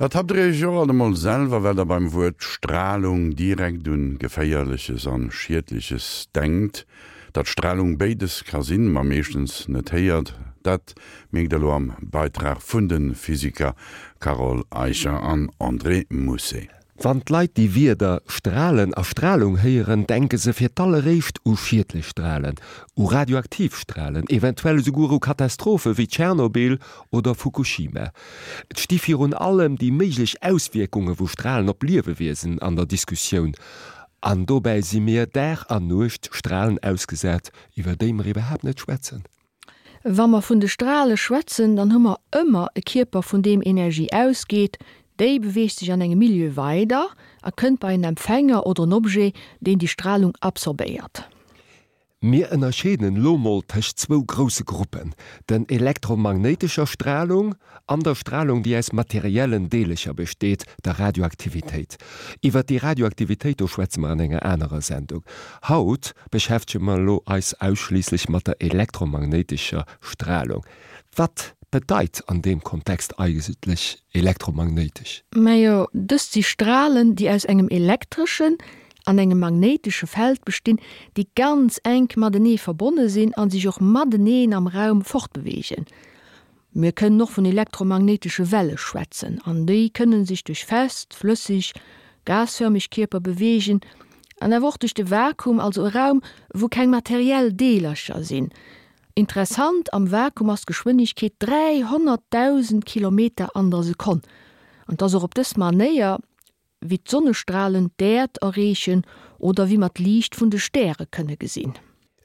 Ertappt der iech och alt emol selwer, well der beim Wuert Stralung direkt un Geféierleches an Schiedleches denkt? Datt Stralung béides ka sinn, ma meeschtens net héiert, dat mierkt der elo am Beitrag vun de Physiker Carole Eicher an André Mousset. Wann d'Leit déi Wierder Stralen a Stralung héieren, denke se fir d'alleréischt u schiedlech Stralen, u radioaktiv Stralen, eventuell esouguer u Katastrophe wéi Tschernobyl oder Fukushima. Et sti virun allem déi méiglech Auswierkunge vu Stralen op Liewewiesen an der Diskussioun. An dobäi si mir Dag an Nuecht Stralen ausgesat, iwwer déi mer iwwerhaapt net schwätzen. Wa mer vun de Strale schwätzen, dann hu mer ëmmer e Kierper vun deem Energie ausgeet, déi beweegt sech an engem Milieu weider a kënnt bei en Empfänger oder en Objet, deen déi Stralung absorbéiert. Mir ënnerscheeden elo mol tëscht zwou grousse Gruppen, den elektromagnéitescher Stralung an der Stralung déi aus materiellen Deelecher besteet, der Radioaktivitéit. Iwwert déi Radioaktivitéit do schwätze mer an enger anerer Sendung. Haut beschäftege mer elo eis ausschliisslech mat der elektromagnéitescher Stralung. Wat bedeit an deem Kontext eigentlech elektromagnéitesch? Majo, dëst si Stralen, déi aus engem elektreschen an engem magnéitesche Feld bestinn, déi ganz enk matenee verbonne sinn a sech och mateneen am Raum fortbeweegen. Mir kënnen och vun elektromagnéitesche Welle schwätzen, an déi kënne sech duerch fest, flësseg, gasförmeg Kierper beweegen an awer och duerch de Vakuum, also e Raum, wou keng materiell Deelercher sinn. Interessant, am Vakuum ass d'Geschwënnegkeet 300.000 Kilometer an der Sekonn, an et ass och op dës Manéier, wéi d'Sonnestralen d'Äerd erreechen oder wéi mer d'Liicht vun de Stäre kënne gesinn.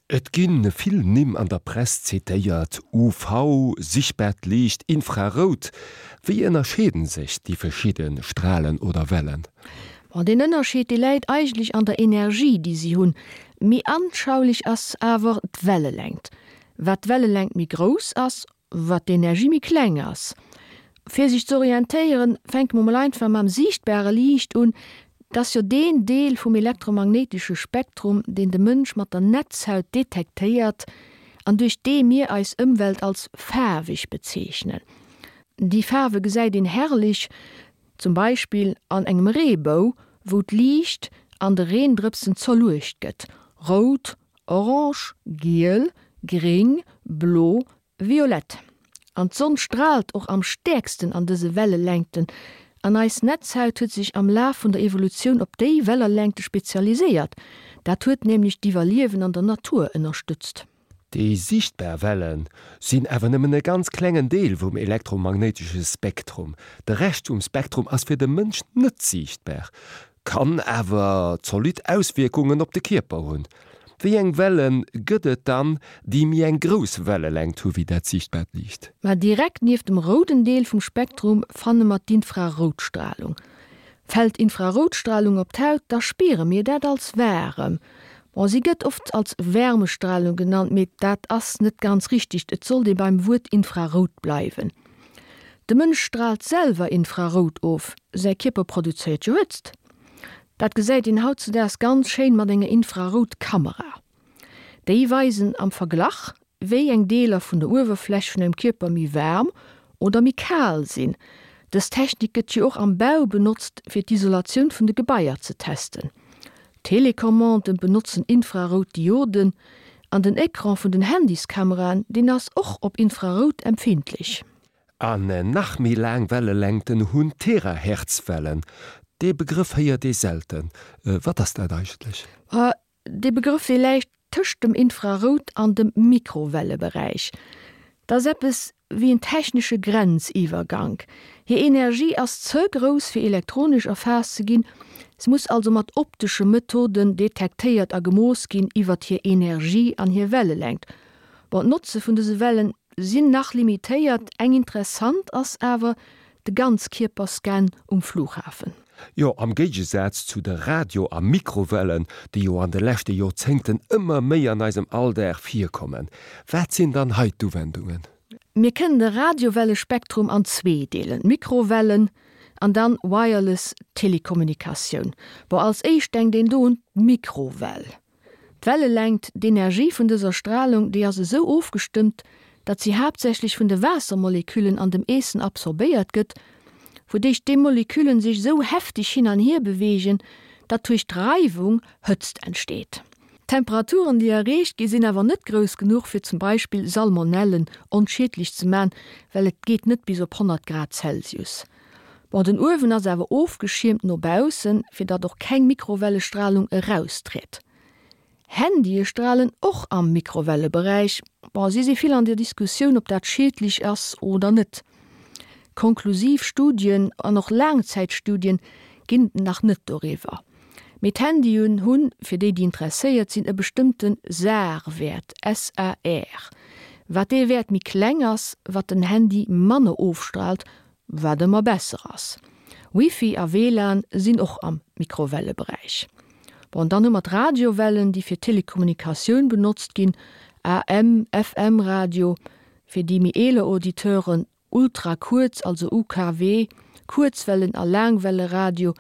Et gi vill Nimm an der Press zitéiert, UV, sichtbaart Liicht, Infrarout. Wéi ënnerscheeden sech déi verschidde Stralen oder Wellen? Bon, deen Ënnerscheed, dee läit eigentlech an der Energie, déi si hunn. Méi anschaulech ass awer d'Wellelängt. Wat d'Wellelängt méi grouss ass, Wat d'Energie méi kleng ass. Fir sech ze orientéieren, fänke mer mol einfach mam siichtbare Liicht un. Dat ass jo deen Deel vum elektromagnéitesche Spektrum, deen de Mënsch mat der Netzhaut detektéiert an duerch dee mir eis Ëmwelt als faarweg bezeechnen. Déi Faarwe gesäit een herrlech zum Beispill an engem Reebou, wou d'Liicht an de Reendrëpsen zerluecht gëtt, rout, Orange, giel, gréng, blo, violett. An d'Sonn straalt och am stäerksten an dëse Wellelängten an eis Netzhaut huet sech am Laf vun der Evolutioun op déi Wellerlängte spezialiséiert. Dat huet nämlech d'Iwwerliewen an der Natur ënnerstëtzt. Déi sichtbar Welle sinn awer nëmmen e ganz klengen Deel vum elektromagnéitesche Spektrum. De Rescht vum Spektrum ass fir de Mënsch net siichtbar. Kann awer zolidd Auswierkungen op de Kierper hunn. Wéi eng Welle gëtt et dann, déi méi eng grouss Wellelängt hu wéi dat siichtbaart Liicht? Ma direkt nieft dem rouden Deel vum Spektrum fanne mer d'Infraroutstralung. Fält Infraroutstralung op d'Haut, da spiere mir dat als waarem. Bon, si gëtt oft als Wärmestralung genannt, mee dat ass net ganz richteg, et sollt ee beim Wuert Infrarout bleiwen. De Mënsch straalt selwer Infrarout of, säi Kierper produzéiert jo Hëtzt. Dat gesäit een hautzedaags ganz schéin mat enger Infraroutkamera. Déi weisen am Verglach, wéi eng Deeler vun der Uewerfläch vun engem Kierper méi waarm oder méi kal sinn. Dës Technik gëtt jo och am Bau benotzt, fir d'Isolatioun vun de Gebaier ze testen. Telecommanden benotzen infrarout Dioden an den Ecran vun den Handyskameraen, deen ass och op Infrarout empfindlech. An nach méi laang Wellelängten hunn Terahertzwellen. Dee Begrëff héiert ee selten. Wat ass dat eigentlech? Dee Begrëff, dee läit tëscht dem Infrarout an dem Mikrowelleberäich. Dat ass eppes wéi en technesche Grenziwwergank. Hir Energie ass ze grouss fir elektronesch erfaasst ze ginn, se muss also mat optesche Methoden detektéiert a gemooss ginn iwwert hir Energie an hir Wellelängt. Bon, d'Notze vun dëse Wellen sinn nach limitéiert, eng interessant ass awer de Ganzkierperscan um Flughafen. Jo, am Géigesaz zu de Radio a Mikrowellen, déi jo an de leschte Joerzéngten ëmmer méi an eisem Alldag virkommen. Wat sinn dann hei d'Uwendungen? Mir kënnen de Radiowellespektrum an zwee deelen, Mikrowellen an dann Wireless Telekommunikatioun. Bon, als éischt denkt een do un d'Mikrowell. D'Wellelängt, d'Energie vun dëser Stralung, déi ass esou ofgestëmmt, datt si haaptsächlech vun de Waassermoleküllen an dem Eessen absorbéiert gëtt. wouduerch déi Moleküllen sech esou hefteg hin an hier beweegen, datt duerch d'Reiwung Hëtzt entsteet. D'Temperaturen déi erreecht gi sinn awer net grouss genuch fir zum Beispill Salmonellen onschiedlech ze man, well et geet net bis op 100 Grad Celsius. Bon, den Uewen ass awer ofgeschiermt no baussen, fir datt och keng Mikrowellestralung eraustritt. Handye stralen och am Mikrowelleberäich. Bon, si si vill an der Diskussioun, ob dat schiedlech ass oder net. Konklusiv Studien an och Laangzäitstudien ginn et nach net doriwwer. Mee d'Handyen hunn, fir déi, déi interesséiert sinn, e bestëmmte SAR-Wäert, SAR. Wat dee Wäert méi kleng ass, wat den Handy manner ofstraalt, wat ëmmer besser ass. Wifi a WLAN sinn och am Mikrowelleberäich. Bon, dann hu mer d'Radiowellen, déi fir Telekommunikatioun benotzt ginn, AM, FM Radio, fir déi méi eeler Auditeuren, Ultrakuerz, also UKW, Kuerzwellen a Laangwelleradio,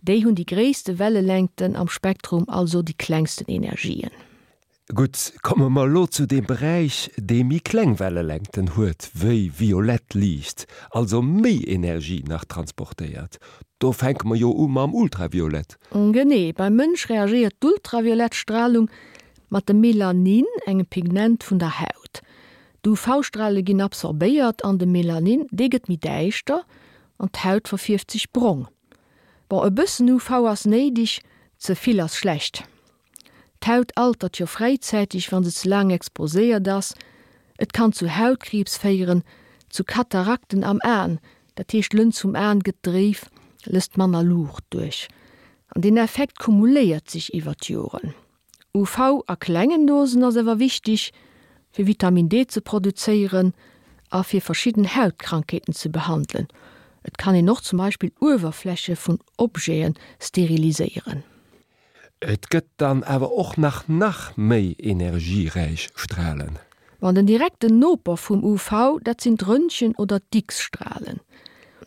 déi hunn déi gréisste Wellelängten am Spektrum, also déi klengsten Energien. Gutt, komme mer elo zu deem Beräich, dee méi kleng Wellelängten huet wéi violett Liicht, also méi Energie nach transportéiert. Do fänke mer jo u mam Ultraviolett. Genee, beim Mënsch reagéiert d'ultraviolett Stralung mat dem Melanin, engem Pigment vun der Haut. D'UV-Strale ginn absorbéiert an de Melanin, dee gëtt méi däischter an d'Haut verfierft sech brong. Bon, e bëssen UV ass néideg, ze vill ass schlecht. D'Haut altert jo fräizäiteg, wa se ze laang exposéiert ass. Et kann zu Hautkriibs féieren, zu Katarakten am Aen, dat heescht d'Lëns vum Aen gëtt dréif, lësst manner Luucht duerch. An deen Effekt kumuléiert sech iwwer d'Joren. UV a klengen Dosen ass awer wichteg, fir Vitamin D ze produzéieren a fir verschidden Hautkrankheeten ze behandelen. Et kann een och zum Beispill Uewerfläche vun Objete steriliséieren. Et gëtt dann awer och nach nach méi energieräich Stralen. Bon, den direkten Noper vum UV, dat sinn d'Röntgen oder d'X-Stralen.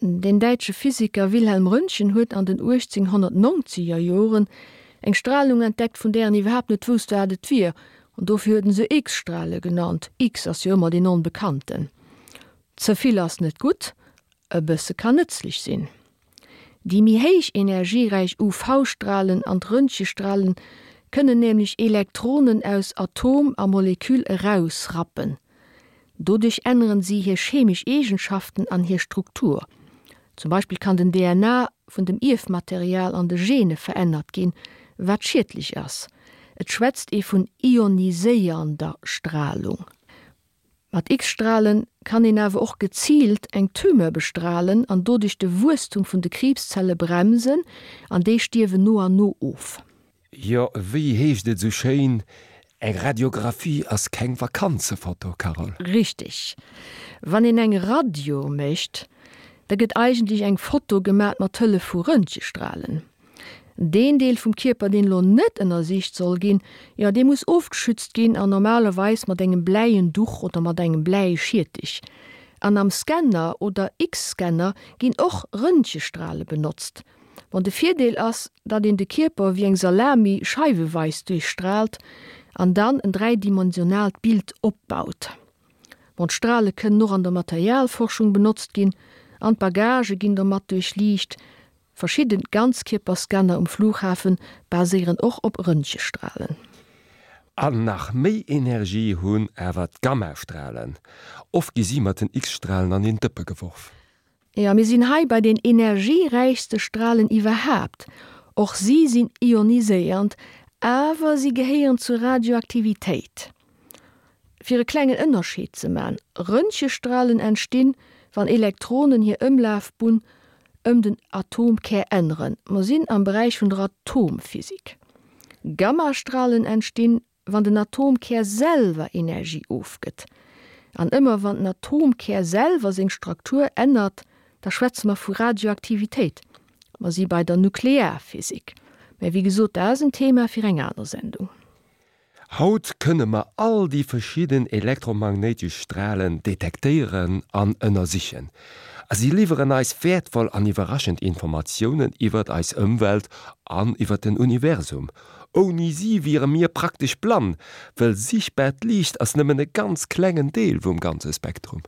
Den däitsche Physiker Wilhelm Röntgen huet an den 1890er Joren eng Stralung entdeckt, vun där en iwwerhaapt net wousst, wat et wier, an dofir huet en se X-Strale genannt. X ass jo ëmmer deen Onbekannten. Ze vill ass net gutt, e bësse kann nëtzlech sinn. Déi méi héich energieräich UV-Stralen an d'Röntgestralen kënnen nämlech Elektronen aus Atom a Moleküll erausrappen. Doduerch änneren si hir chemesch Eegenschaften an hir Struktur. Zum Beispill kann den DNA vun dem Ierfmaterial an de Gene verännert ginn, wat schiedlech ass. Et schwätzt ee vun ioniséiernder Stralung. Mat X-Stralen kann een awer och geziilt eng Tumeur bestralen an doduerch de Wuesstum vun de Kriibszelle bremsen an déi stierwen no an no of. Jo, wéi heescht et esou schéin, eng Radiographie ass keng Vakanzefoto, Carole. Richteg. Wann een eng Radio mécht, da gëtt eigentlech eng Foto gemat mat Hëllef vu Röntgestralen. Deen Deel vum Kierper, deen elo net ënnersicht soll ginn, jo, dee muss ofgeschützt ginn an normalerweis mat engem bläien Duch oder mat engem Bläischiertech. An am Scanner oder X-Scanner ginn och Röntgestrale benotzt. Bon, de Virdeel ass, datt een de Kierper wéi eng Salami scheiweweis duerchstraalt an dann en dräidimensionaalt Bild opbaut. Bon, d'Strale kënnen och an der Materialforschung benotzt ginn an d'Bagagë ginn domat duerchliicht. Verschidden Ganzkierperscanner um Flughafen baséieren och op Röntgestralen. An nach méi Energie hunn awer d'Gammastralen. Oft gi si mat den X-Stralen an een Dëppe geworf. Jo, mir sinn hei bei den energieräichste Stralen iwwerhaapt. Och si sinn ioniséiernd, awer si gehéieren zur Radioaktivitéit. Fir e klengen Ënnerscheed ze man, Röntgestralen entstinn, wann Elektronen hir Ëmlafbunn ëm den Atomkär änneren, mer sinn am Beräich vun der Atomphysik. Gammastralen entstinn, wann den Atomkär selwer Energie ofgëtt. An ëmmer wann den Atomkär selwer seng Struktur ännert, da schwätze mer vu Radioaktivitéit. Mer si bei der Nuklearphysik. Mä wéi gesot, dat ass en Thema fir eng aner Sendung. Haut kënne mer all déi verschidden elektromagnéitesch Stralen detektéieren an ënnersichen. A si liwweren eis wäertvoll an iwwerraschend Informatiounen iwwert eis Ëmwelt an iwwert den Universum. Ouni si wiere mir praktesch blann, wëll sichtbaart Liicht ass nëmmen e ganz klengen Deel vum ganze Spektrum.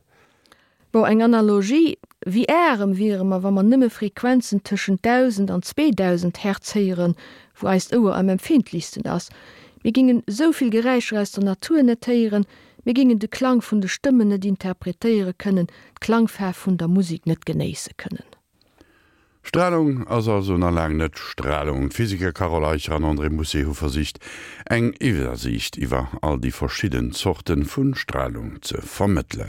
Bon, eng Analogie. Wéi aarem wiere mer, wa mer nëmme Frequenzen tëschent 1.000 an 2.000 Hertz héieren, wou eist Ouer am empfindlichsten ass. Mir gingen esou vill Geräischer aus der Natur net héieren, mir gingen de Klang vun de Stëmmen net interpretéiere kënnen, d'Klangfaarf vun der Musek net genéisse kënnen. Stralung ass also nach laang net Stralung. D'Physiker Carole Eicher an André Mousset hu versicht, eng Iwwersiicht iwwer all déi verschidden Zorte vu Stralung ze vermëttelen.